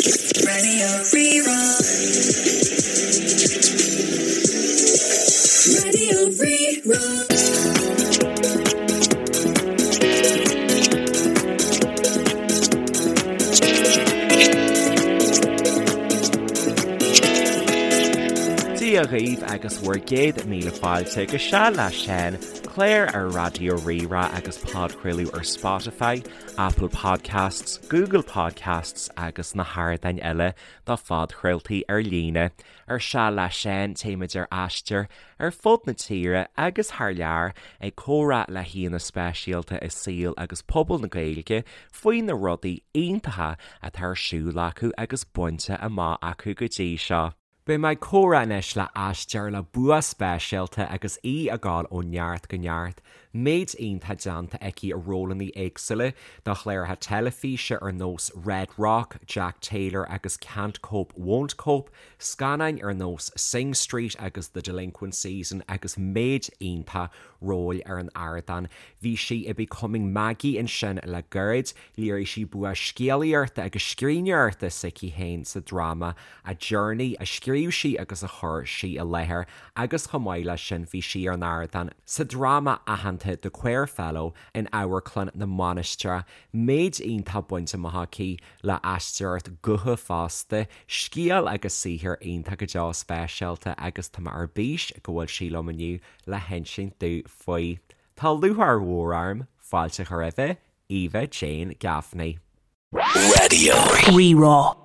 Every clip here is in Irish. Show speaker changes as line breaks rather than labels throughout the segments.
Raidió Rí-Rá. Raidió Rí-Rá.
Dia dhaoibh agus bhur gcéad míle fáilte go Seal le Seán, clár ar Raidió Rí-Rá agus podchraoladh ar Spotify, Apple Podcasts, Google Podcasts agus na hardáin eile do phodchraoltaí ar líne. Ar Seal le Seán, téimid ar aistear ar fud na tíre agus thar lear ag comhrá le haíonna speisialta i saol agus pobal na Gaeilge faoi na rudaí iontacha atá ar siúl acu agus bainte amach acu go dtí seo. Beidh mé ag comhrá anois le haisteoir le bua speisialta agus í ag gabháil ó neart go neart, méid iontach déanta aici i rólanna éagsúla do chláracha teilifíse ar nós Red Rock, Jack Taylor agus Can't Cope Won't Cope, scannáin ar nós Sing Street agus The Delinquent Season agus méid iontach róil ar an ardán. Bhí sí i Becoming Maggie ansin le gairid, léirigh sí bua scéalaíochta agus scríbhneoireachta s'aici féin sa dráma A Journey a scríobh sí agus a chuir sí i láthair agus chomh maith leis sin bhí sí ar an ardán sa dráma aitheanta The Queer Fellow in Amharclann na Mainistreach. Méid iontach bainte amach aici le haisteoireacht gutha fosta, scéal agus saothar iontach go deo speisialta agus tá mé ar bís go bhfuil sí liom inniu le hinsint domh faoi. Tá lúcháir mhór orm fáilte a chur roimh Eva Jane Gaffney.
Raidió Rí-Rá.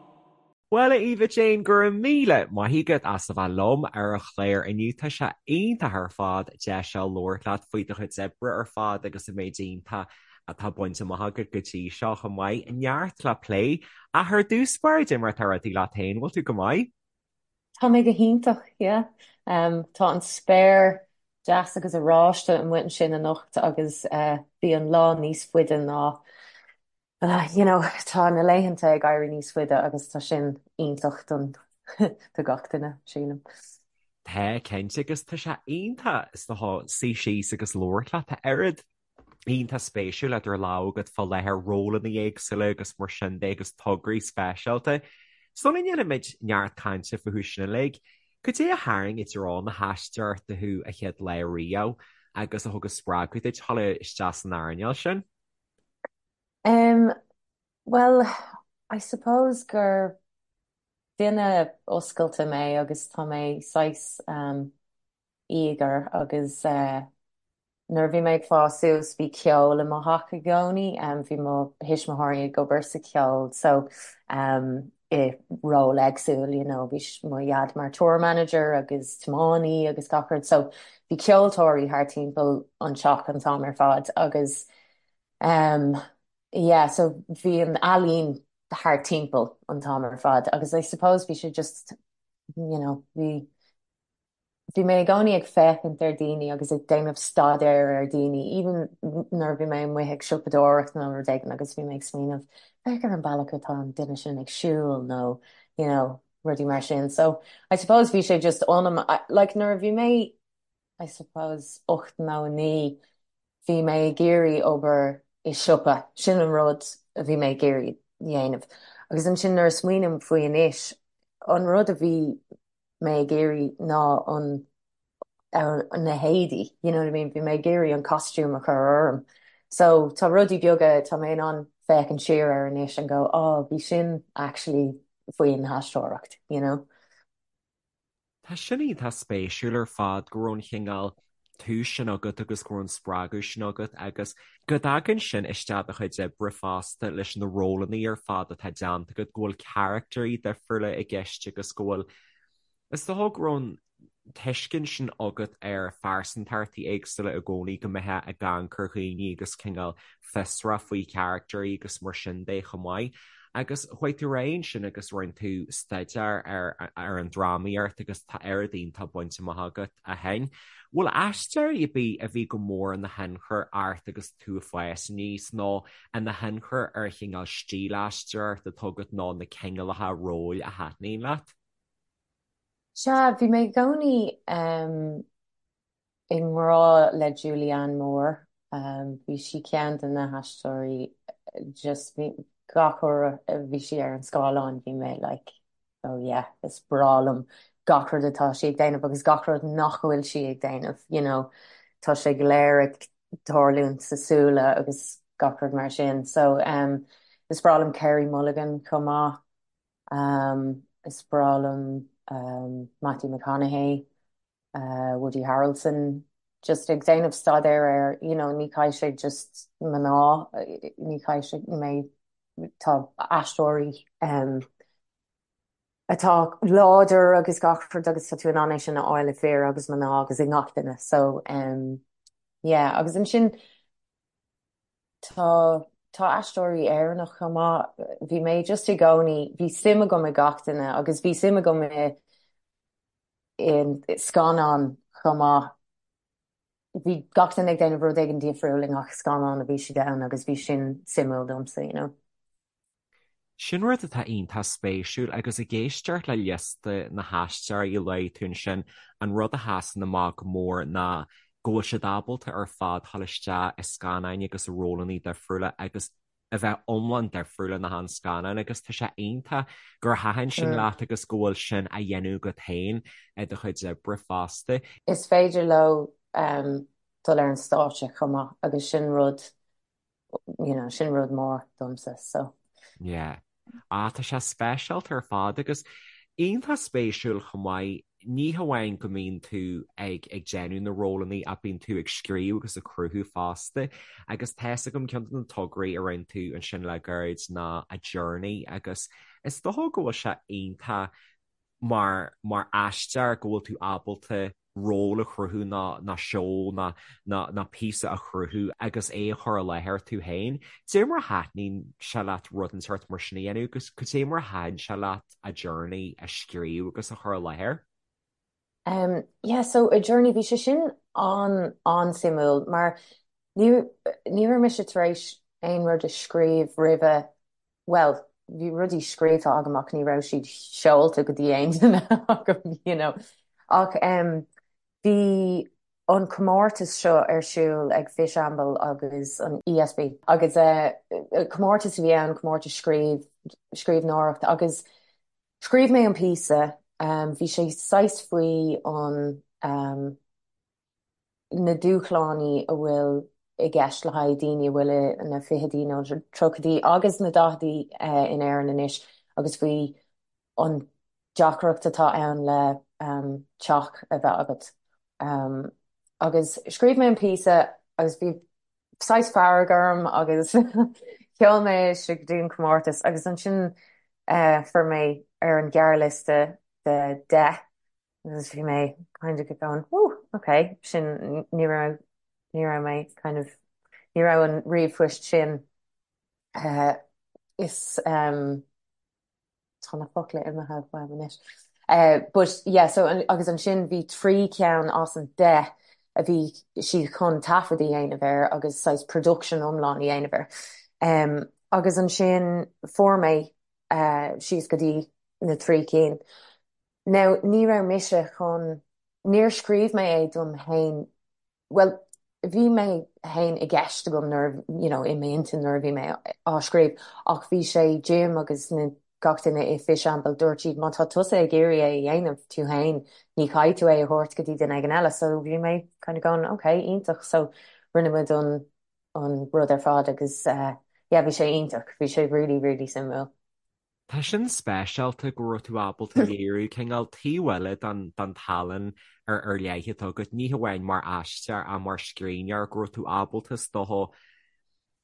Bhuel, a Eva Jane, go raibh míle maith agat as a bheith liom ar an chlár inniu. Tá sé iontach ar fad deis a labhairt leat faoi do chuid oibre ar fad agus an méid iontach atá bainte amach agat go dtí seo chomh maith. Neart le plé. Ach ar dtús báire, cad é mar atá rudaí leat féin, bhfuil tú go maith?
Tá mé go hiontach, yeah. Tá an spéir deas agus oráiste amuigh ansin anocht agus bhí an lá níos faide ná, you know, tá na laethanta ag éirí níos faide agus tá sin iontach don do gach duine, sílim.
Tá, cinnte, agus tá sé iontach is dócha suí síos agus labhairt leat, tá oiread iontach spéisiúil idir lámha agat fá láthair, rólanna éagsúla agus mar sin de agus tograí speisialta. Sula ndéanaimid neart cainte fúthu sin uilig, cad é a tharraing i dtreo na haisteoireachta thú an chéad lá riamh agus a thug an spreagadh duit dul isteach san earnáil sin?
Um, well, I suppose gur duine oscailte mé agus tá mé saghas um, eager agus eh, Nuair a bhí mé ag fás suas bhí ceol i mo theach i gcónaí. Bhí mo thuismitheoirí ag obair sa cheol so i ról éagsúil you know bhí mo dhaid mar tour manager agus tiománaí agus gach rud so bhí ceoltóirí thar timpeall an teach an t-am ar fad agus yeah so bhí an ealaín thar timpeall an t-am ar fad agus I suppose bhí sé just you know bhí Bhí mé i gcónaí ag féachaint ar daoine agus ag déanamh staidéar ar daoine, even nuair a bhí mé amuigh ag siopadóireacht nó rud éigin agus bhí mé ag smaoineamh, féach ar an bealach atá an duine sin ag siúl nó, you know, rudaí mar sin. So, I suppose bhí sé just ionam, like nuair a bhí mé, I suppose, 8 nó 9, bhí mé ag iarraidh obair i siopa, sin an rud a bhí mé ag iarraidh dhéanamh. Agus ansin nuair a smaoiním faoi anois, an rud a bhí mé ag iarraidh ná an na héadaí, you know what I mean, bhí mé ag iarraidh an costume a chur orm. So tá rudaí beaga, tá mé in ann féachaint siar air anois and go, oh, bhí sin actually faoin aisteoireacht, you know.
Tá sin iontach spéisiúil ar fad go raibh an chineál tús sin agat agus go raibh an spreagadh sin agat agus go dtagann sin isteach i do chuid oibre fosta leis na rólanna ar fad atá déanta agat, go bhfuil caractairí difriúla i gceist agus go bhfuil, is dócha go raibh an tuiscint sin agat ar phearsantachtaí éagsúla i gcónaí, go mbeifeá ag amharc ar dhaoine agus cineál fiosrach faoi charactairí agus mar sin de chomh maith. Agus chuaigh tú ar aghaidh ansin agus rinne tú staidéar ar ar an drámaíocht agus tá oiread iontach bainte amach agat ó shin. Bhfuil aisteoirí ar bith a bhí go mór ina thionchar ort agus tú ag fás aníos nó ina thionchar ar chineál stíl aisteoireachta atá agat nó na cineálacha róil a thaitníonn leat?
Sea, bhí mé i gcónaí i ngrá le Julianne Moore. Bhí sí ceann de na haisteoirí just bhí. Gach uair a bhí sí ar an scáileán bhí mé like oh yeah, is breá liom gach rud atá sí ag déanamh agus gach rud nach bhfuil sí ag déanamh, you know, tá sé go léir ag tarlúint sa súile agus gach rud mar sin. So um, is breá liom Carey Mulligan chomh maith. Um, is breá liom um, Matthew McConaughey. Woody Harrelson just ag déanamh staidéar ar you know ní caithfidh sé just mná, ní caithfidh sé mé tá aisteoirí um, atá láidir agus gach rud agus tá tú in ann é sin a fháil i fir agus mná agus i ngach duine so um, yeah agus ansin tá tá aisteoirí Éireannach chomh maith bhí mé just i gcónaí bhí suim agam i gach duine agus bhí suim agam i i scannáin chomh maith. Bhí gach duine ag déanamh rud éigin difriúil i ngach scannán a bhí siad ann agus bhí sin suimiúil domsa, you know.
Sin rud atá iontach spéisiúil agus ag éisteacht le liosta na haisteoirí a luaigh tú ansin, an rud a sheasann amach go mór ná go bhfuil siad ábalta ar fad dul isteach i scannáin agus i rólanna difriúla agus a bheith iomlán difriúil in achan scannán agus tá sé iontach gur thaitin sin leat agus go bhfuil sin á dhéanamh agat féin i do chuid oibre fosta.
Is féidir leo dul ar an stáitse chomh maith agus sin rud, you know, sin rud mór domsa so.
Yeah. Ah, tá sé speisialta ar fad agus iontach spéisiúil chomh maith, ní hamháin go mbíonn tú ag ag déanamh na rólanna ach bíonn tú ag scríobh agus ag cruthú fosta agus tá's agam ceann de na tograí a rinne tú ansin le gairid ná A Journey agus is dócha go bhfuil sé iontach mar mar aisteoir go bhfuil tú ábalta ról a chruthú nó nó seó nó nó nó píosa a chruthú agus é a chur i láthair tú féin. Cad é mar a thaitníonn sé leat rud den sórt mar sin a dhéanamh agus cad é mar a thaitin sé leat A Journey a scríobh agus a chur i láthair?
Um, yeah, so A Journey, bhí sé sin an an-suimiúil mar ní ní raibh mise tar éis aon rud a scríobh roimhe bhuel, bhí rudaí scríofa agam ach ní raibh siad seolta go dtí aon duine agam, you know. Ach em, bhí an comórtas seo ar siúl ag Fishamble agus an ESB agus eh, comórtas a bhí ann, comórtas scríobh, scríbhneoireacht agus scríobh mé an píosa, em, bhí sé saghas faoi an em, na dúshláin a bhfuil i gceist le haghaidh daoine a bhfuil ina fichidí nó tríochaidí agus na daichidí in Éirinn anois agus faoi an deacracht atá ann le teach a bheith agat. Agus scríobh mé an píosa agus bhí saghas fearg orm agus sheol mé é go dtí an comórtas agus ansin fuair mé ar an ghearrliosta de 10 Agus bhí mé kind of going, ooh, ok, sin, ní raibh, ní raibh mé kind of, ní raibh an ríomhphoist sin, eh, is, um, tá na focla imithe uaim anois. Eh, but yeah, so, agus ansin bhí 3 ceann as an 10 a bhí siad chun taifead a dhéanamh air agus saghas production iomlán a dhéanamh air. Um, agus ansin fuair mé, eh, síos go dtí na 3 cinn. Now, ní raibh mise chun, níor scríobh mé é dom fhéin, bhuel, bhí mé fhéin i gceist agam nuair, you know, i m'intinn nuair a bhí mé á scríobh ach bhí sé Jim agus na, gach duine i Fishamble, dúirt siad má tá tusa ag iarraidh é a dhéanamh tú fhéin, ní chaithfidh tú é a thabhairt go dtí duine éigin eile. So bhí mé kind of going, ok, iontach. So rinne muid an, an rud ar fad agus eh, yeah, bhí sé iontach, bhí sé really, really suimiúil.
Tá sin speisialta go raibh tú ábalta léiriú cineál taobh eile den den tallann ar ar leith atá agat, ní hamháin mar aisteoir ach mar scríbhneoir, go raibh tú ábalta is dócha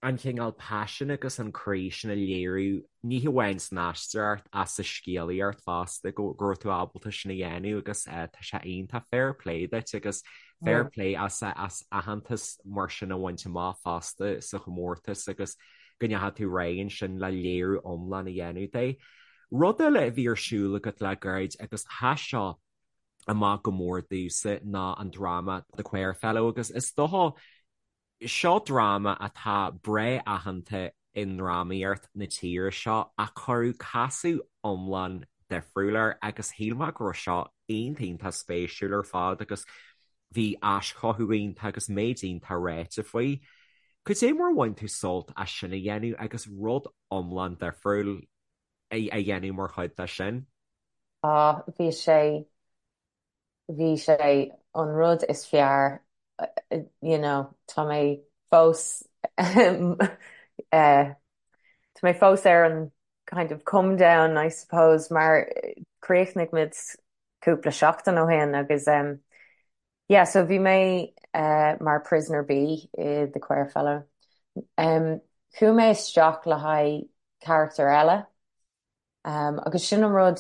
an cineál paisin agus an croí sin a léiriú, ní hamháin san aisteoireacht ach sa scéalaíocht fosta, go go raibh tú ábalta sin a dhéanamh agus tá sé iontach, fair play duit agus fair play as as aitheantas mar sin a bhaint amach fosta sa chomórtas agus go ndeachaigh tú ar aghaidh ansin le léiriú iomlán a dhéanamh de. Rud eile a bhí ar siúl agat le gairid agus sheas seo amach go mór domhsa ná an dráma The Queer Fellow agus is dócha seo dráma atá breá aitheanta i ndrámaíocht na tíre seo ach cuireadh casadh iomlán difriúil air agus shíl mé go raibh seo iontach iontach spéisiúil ar fad agus bhí aischothú iontach agus méid iontach ráite faoi. Cad é mar a bhain tú sult as sin a dhéanamh agus rud iomlán difriúil a dhéanamh mar chuid de sin?
Á, bhí sé, bhí sé an rud is fearr, you know, tá mé fós, tá mé fós ar an kind of come down, I suppose, mar chríochnaigh muid cúpla seachtain ó shin agus yeah, so bhí mé mar Prisoner B i The Queer Fellow. Chuaigh mé isteach le haghaidh carachtar eile agus sin an rud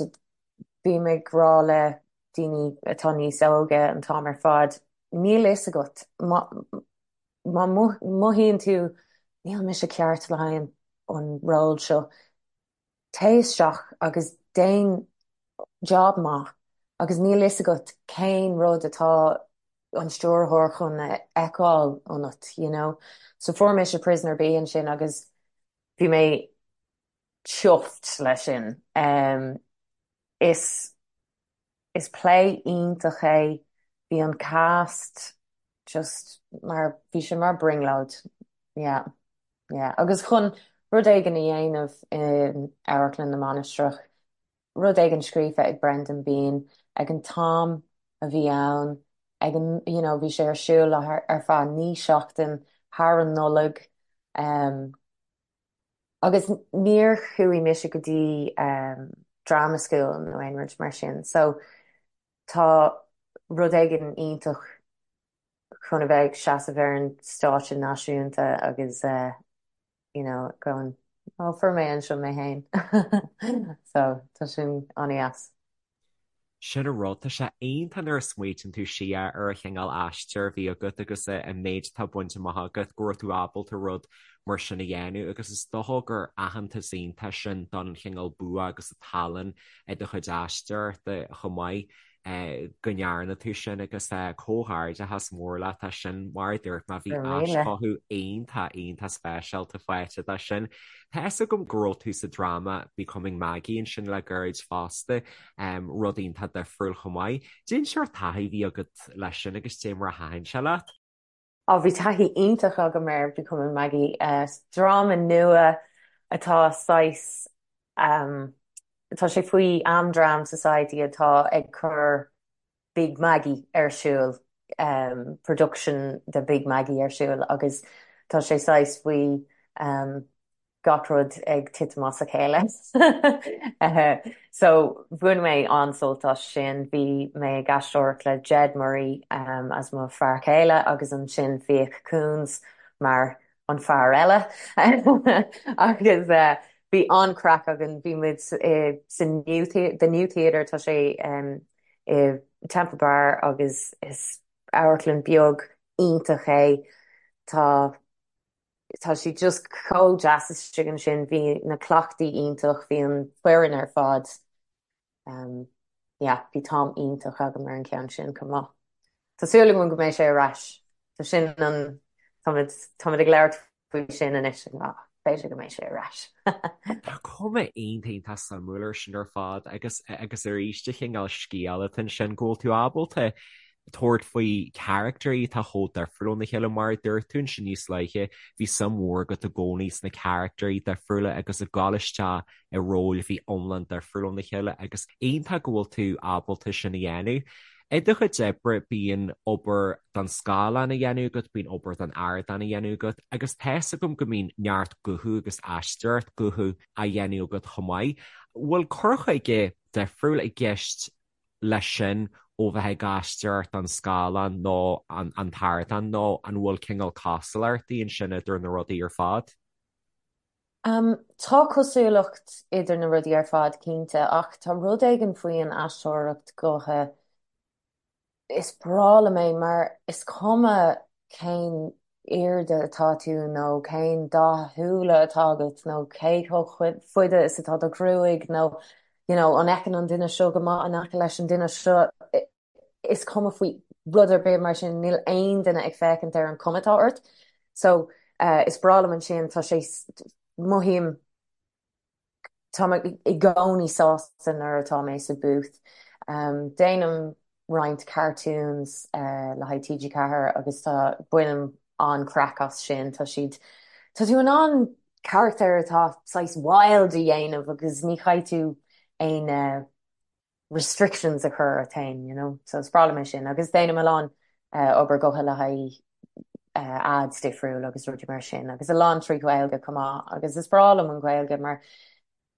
bím ag rá le daoine atá níos óige an t-am ar fad, níl fhios agat má mothaíonn tú níl mise ceart le haghaidh an ról seo, téigh isteach agus déan job maith agus níl fhios agat cén rud atá an stiúrthóir chun a fheiceáil ionat, you know. So fuair mise Prisoner B ansin agus bhí mé chuffed leis sin. Um, is Is play iontach é. Bhí an cast just mar, bhí sé mar brionglóid. Yeah. Yeah. Agus chun rud éigin a dhéanamh in Amharclann na Mainistreach, rud éigin scríofa ag Brendan Behan ag an t-am a bhí ann, ag an, you know, bhí sé ar siúl ar feadh 9 seachtain thar an Nollaig. Um, Agus níor chuaigh mise go dtí drama school nó aon rud mar sin so tá rud éigin iontach chun a bheith ag seasamh ar an stáitse náisiúnta agus you know going oh fuair mé anseo mé féin so tá sin an-dheas.
Sin an rud, tá sé iontach nuair a smaoitíonn tú siar ar an chineál aistear a bhí agat agus an méid atá bainte amach agat, go raibh tú ábalta rud mar sin a dhéanamh agus is dócha gur aitheantas iontach sin don chineál bua agus an tallann i do chuid aisteoireachta chomh maith. go ndearna tú sin agus comhghairdeachas mór leat as sin. Mar a dúirt mé, bhí aischothú iontach, iontach speisialta faighte dó sin. Tá fhios agam go raibh tú sa dráma Becoming Maggie ansin le gairid fosta, rud iontach difriúil chomh maith. Cén sórt taithí a bhí agat leis sin agus cé mar a thaitin sé leat?
Á, bhí taithí iontach agam ar Becoming Maggie. Dráma nua atá saghas, tá sé faoi Am Dram Society atá ag cur Big Maggie ar siúl, production de Big Maggie ar siúl agus tá sé saghas faoi gach rud ag titim as a chéile. So bhain mé an-sult as sin. Bhí mé ag aisteoireacht le Jed Murray as mo fear céile agus ansin Fiach Coons mar an fear eile agus bhí an-craic againn. Bhí muid sa New The New Theatre, tá sé i Temple Bar agus is amharclann beag iontach é. Tá Tá sé just chomh deas istigh ansin, bhí na cleachtaí iontach, bhí an foireann ar fad, yeah, bhí t-am iontach agam ar an cheann sin chomh maith. Tá súil agam go mbeidh sé ar ais, tá sin an, táimid, táimid ag labhairt faoi sin anois, b'fhéidir go mbeidh sé ar ais.
Tá cuma iontach iontach suimiúil air sin ar fad agus agus arís an cineál scéal atá ansin go bhfuil tú ábalta tabhairt faoi charactairí atá chomh difriúil óna chéile. Mar a dúirt tú ansin níos luaithe, bhí suim mhór agat i gcónaí sna caractairí difriúla agus ag dul isteach i róil a bhí iomlán difriúil óna chéile agus iontach go bhfuil tú ábalta sin a dhéanamh. I do chuid oibre bíonn obair don scáileán á dhéanamh agat, bíonn obair don ardán á dhéanamh agat agus tá fhios agam go mbíonn neart guthú agus aisteoireacht gutha á dhéanamh agat chomh maith. Bhfuil cur chuige difriúil i gceist leis sin ó bheith ag aisteoireacht don scáileán nó an t-ardán nó an bhfuil cineál cosúlachtaí ansin idir na rudaí ar fad?
Tá cosúlacht idir na rudaí ar fad cinnte ach tá rud éigin faoi an aisteoireacht gutha, is breá liom é mar is cuma cén airde atá tú nó cén dath súile atá agat nó cé chomh fada is atá do ghruaig nó you know an bhfeiceann an duine seo go maith in aice leis an duine seo, is cuma faoi rud ar bith mar sin, níl aon duine ag féachaint ar an chuma atá ort. So is breá liom ansin, tá sé, mothaím Tá mé i gcónaí sásta nuair atá mé sa booth. Déanaim roinnt cartoons le haghaidh TG4 agus tá, bainim. an-craic as sin. Tá siad, tá tú in ann carachtar atá saghas wild a dhéanamh agus ní chaithfidh tú aon restrictions a chur ort féin, you know. So is breá liom é sin. Agus déanaim a lán obair gutha le haghaidh ads difriúil agus rudaí mar sin agus a lán trí Ghaeilge chomh maith agus is breá liom an Ghaeilge mar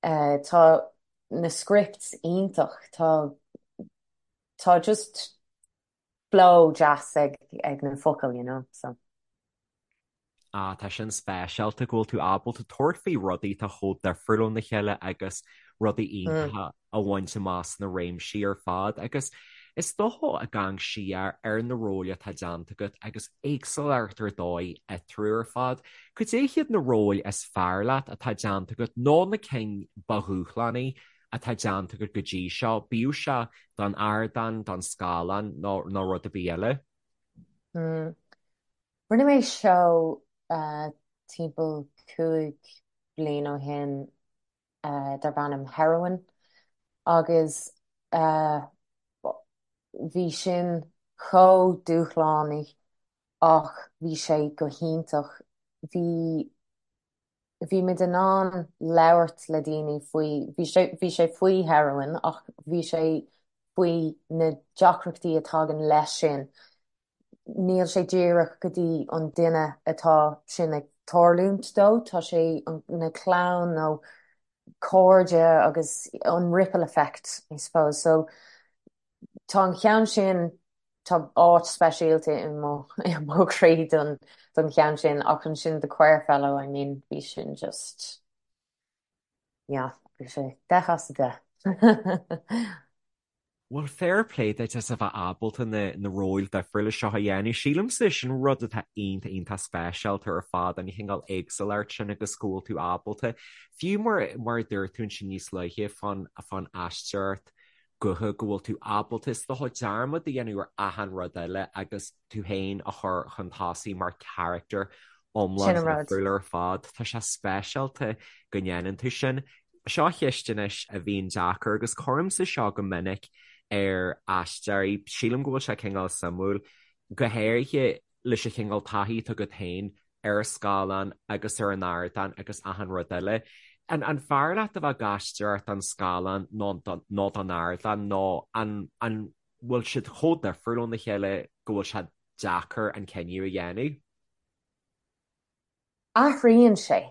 tá na scripts iontach, tá tá just flow deas ag ag na focail, you know, so.
Ah, tá sin speisialta go bhfuil tú ábalta tabhairt faoi rudaí atá chomh difriúil óna chéile agus rudaí iontacha a bhaint amach sna réimsí ar fad agus is dócha ag amharc siar ar na róil atá déanta agat agus éagsúlacht ar dóigh eatarthu ar fad. Cad é hiad na róil is fearr leat atá déanta agat nó na cinn ba dhúshlánaí atá déanta agat go dtí seo, bíodh sé don ardán, don scáileán nó nó rud ar bith eile?
Rinne mé seó timpeall 5 bliain ó shin darb ainm Heroin agus bhí sin chomh dúshlánach ach bhí sé go hiontach. Bhí bhí muid in ann labhairt le daoine faoi, bhí sé, bhí sé faoi heroin ach bhí sé faoi na deacrachtaí a tagann leis sin. Níl sé díreach go dtí an duine atá sin ag tarlúint dó, tá sé na clann nó cairde agus an ripple effect, I suppose. So tá an cheann sin, tá áit speisialta i mo i mo chroí don don cheann sin ach ansin The Queer Fellow, I mean, bhí sin just, yeah, bhí sé 10 as 10.
Bhuel, fair play duit as a bheith ábalta na na róil difriúla seo a dhéanamh. Sílimse sin rud atá iontach iontach speisialta ar fad, an chineál éagsúlacht sin agus go bhfuil tú ábalta, fiú mar mar a dúirt tú ansin níos luaithe fán fán aisteoireacht gutha, go bhfuil tú ábalta is dócha dearmad a dhéanamh ar achan rud eile agus tú féin a chur chun tosaigh mar charachtar iomlán
Sin an rud.
difriúil ar fad. Tá sé speisialta go ndéanann tú sin. Seo ceist anois a bhíonn deacair agus cuirimse seo go minic ar aisteoirí, sílim go bhfuil sé cineál suimiúil, go háirithe leis an chineál taithí atá agat féin ar an scáileán agus ar an ardán agus achan rud eile. An an fearr leat a bheith ag aisteoireacht don scáileán nó nó don ardán nó an an bhfuil siad chomh difriúil óna chéile go bhfuil sé deacair an cinneadh a dhéanamh?
Athraíonn sé,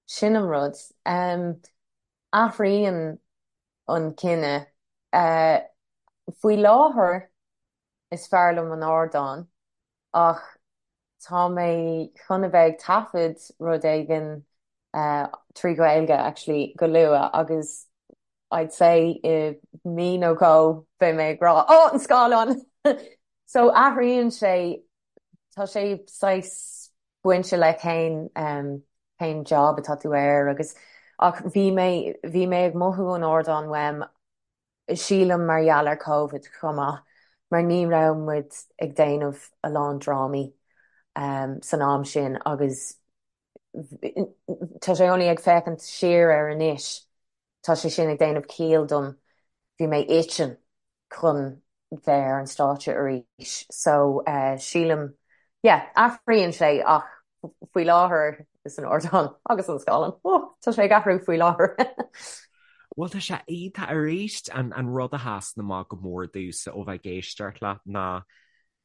sin an rud. Athraíonn an cinneadh. Faoi láthair is fearr liom an ardán ach tá mé chun a bheith ag taifead rud éigin trí Ghaeilge actually go luath agus I'd say i mí nó dhó beidh mé ag rá oh an scáileán! So athraíonn sé Tá sé saghas bainte le cén cén job atá tú air agus ach bhí mé bhí mé ag mothú an ardán uaim sílim mar gheall ar Covid chomh maith mar ní raibh muid ag déanamh a lán drámaí san am sin agus tá sé only ag féachaint siar air anois tá sé sin ag déanamh ciall dom bhí mé itching chun bheith ar an stáitse arís so sílim yeah athraíonn sé ach faoi láthair is an ardán agus an scáileán oh tá sé ag athrú faoi láthair.
Bhuel tá sé iontach arís an an rud a sheasann amach go mór domhsa ó bheith ag éisteacht leat ná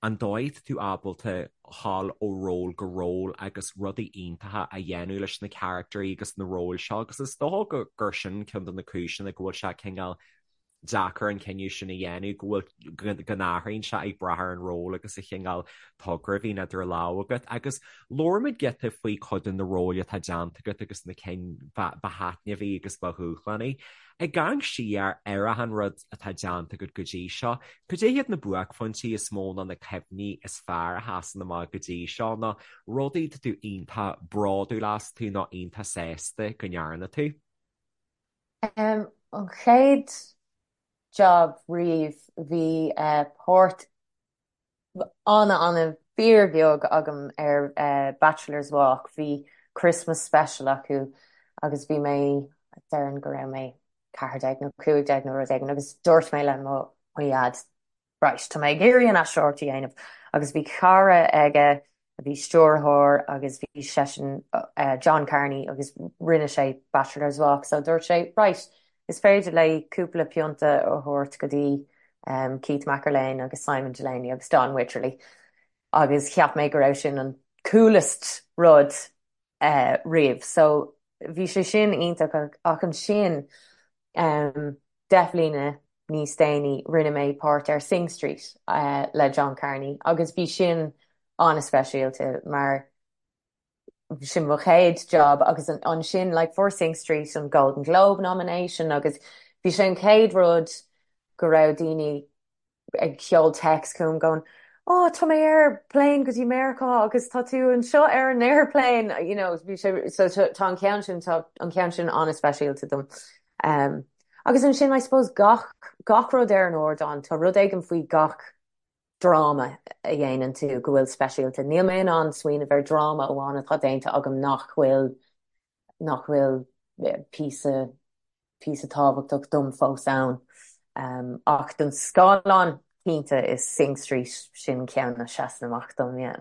an dóigh atá tú ábalta dhul ó ról go ról agus rudaí iontacha a dhéanamh leis na caractairí agus na róil seo agus is dócha gur sin ceann de na cúiseanna go bhfuil sé cineál deacair an cinneadh sin a dhéanamh, go bhfuil, go n-athraíonn sé ag brath ar an ról agus an chineál togra a bhíonn idir lámha agat. Agus labhair muid giota faoi chuid de na róil atá déanta agat agus na cinn ba thaitneamhaí agus ba dhúshlánaí. Ag amharc siar ar achan rud atá déanta agat go dtí seo, cad é hiad na buaicphointí is mó nó na cuimhní is fearr a sheasann amach go dtí seo nó rudaí atá tú iontach bródúil astu nó iontach sásta go ndearna tú?
An chéad job riamh, bhí páirt ana-ana fíorbheag agam ar Bachelor's Walk. Bhí Christmas special acu agus bhí mé, déarfainn go raibh mé 14 nó 15 nó rud éigin agus dúirt mé le mo dhaid, right, tá mé ag iarraidh an aisteoireacht a dhéanamh agus bhí cara aige. a bhí stiúrthóir agus bhí seisean, John Carney agus rinne sé Bachelor's Walk so dúirt sé right, is féidir léi cúpla pionta a thabhairt go dtí Keith McErlean agus Simon Delaney agus Don Wycherley agus cheap mé go raibh sin an coolest rud riamh. So bhí sé sin iontach ach ansin 10 mbliana níos déanaí rinne mé páirt ar Sing Street le John Carney agus bhí sin an-speisialta mar sin mo chéad job agus ansin like fuair Sing Street an Golden Globe nomination agus bhí sé an chéad rud go raibh daoine ag seoladh text chugam going oh tá mé ar plane go dtí Meiriceá agus tá tú anseo ar an airplane you know bhí sé so tá an ceann sin tá an ceann sin an-speisialta dom. Um, agus ansin I suppose gach gach rud ar an ardán tá rud éigin faoi gach dráma a dhéanann tú go bhfuil speisialta. Níl mé in ann smaoineamh ar dráma amháin atá déanta agam nach bhfuil nach bhfuil píosa píosa tábhachtach dom fós ann. Ach don scáileán, cinnte, is Sing Street sin ceann a sheasann amach dom, yeah.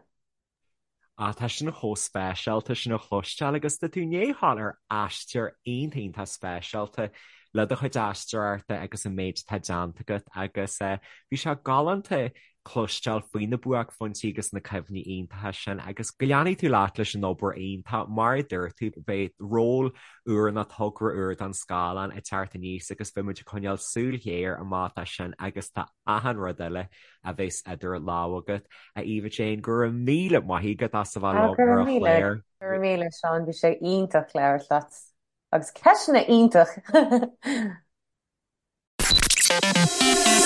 Ah, tá sin chomh speisialta sin a chloisteáil agus tá tú i ndiaidh a ghabháil ar aistear iontach iontach speisialta le do chuid aisteoireachta agus an méid atá déanta agat agus bhí sé galánta cloisteáil faoi na buaicphointí agus na cuimhní iontacha sin agus go leanfaidh tú leat leis an obair iontach. Mar a dúirt tú, beidh ról úr nó togra úr don scáileán ag teacht aníos agus beidh muid ag coinneáil súil ghéar amach dó sin agus do achan rud eile a bheas idir lámha agat. A Eva-Jane, go raibh míle maith agat as a bheith liom
ar an chlár. Go raibh míle, Seán, bhí sé iontach labhairt leat agus ceisteanna iontach!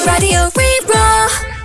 Raidió Rí-Rá.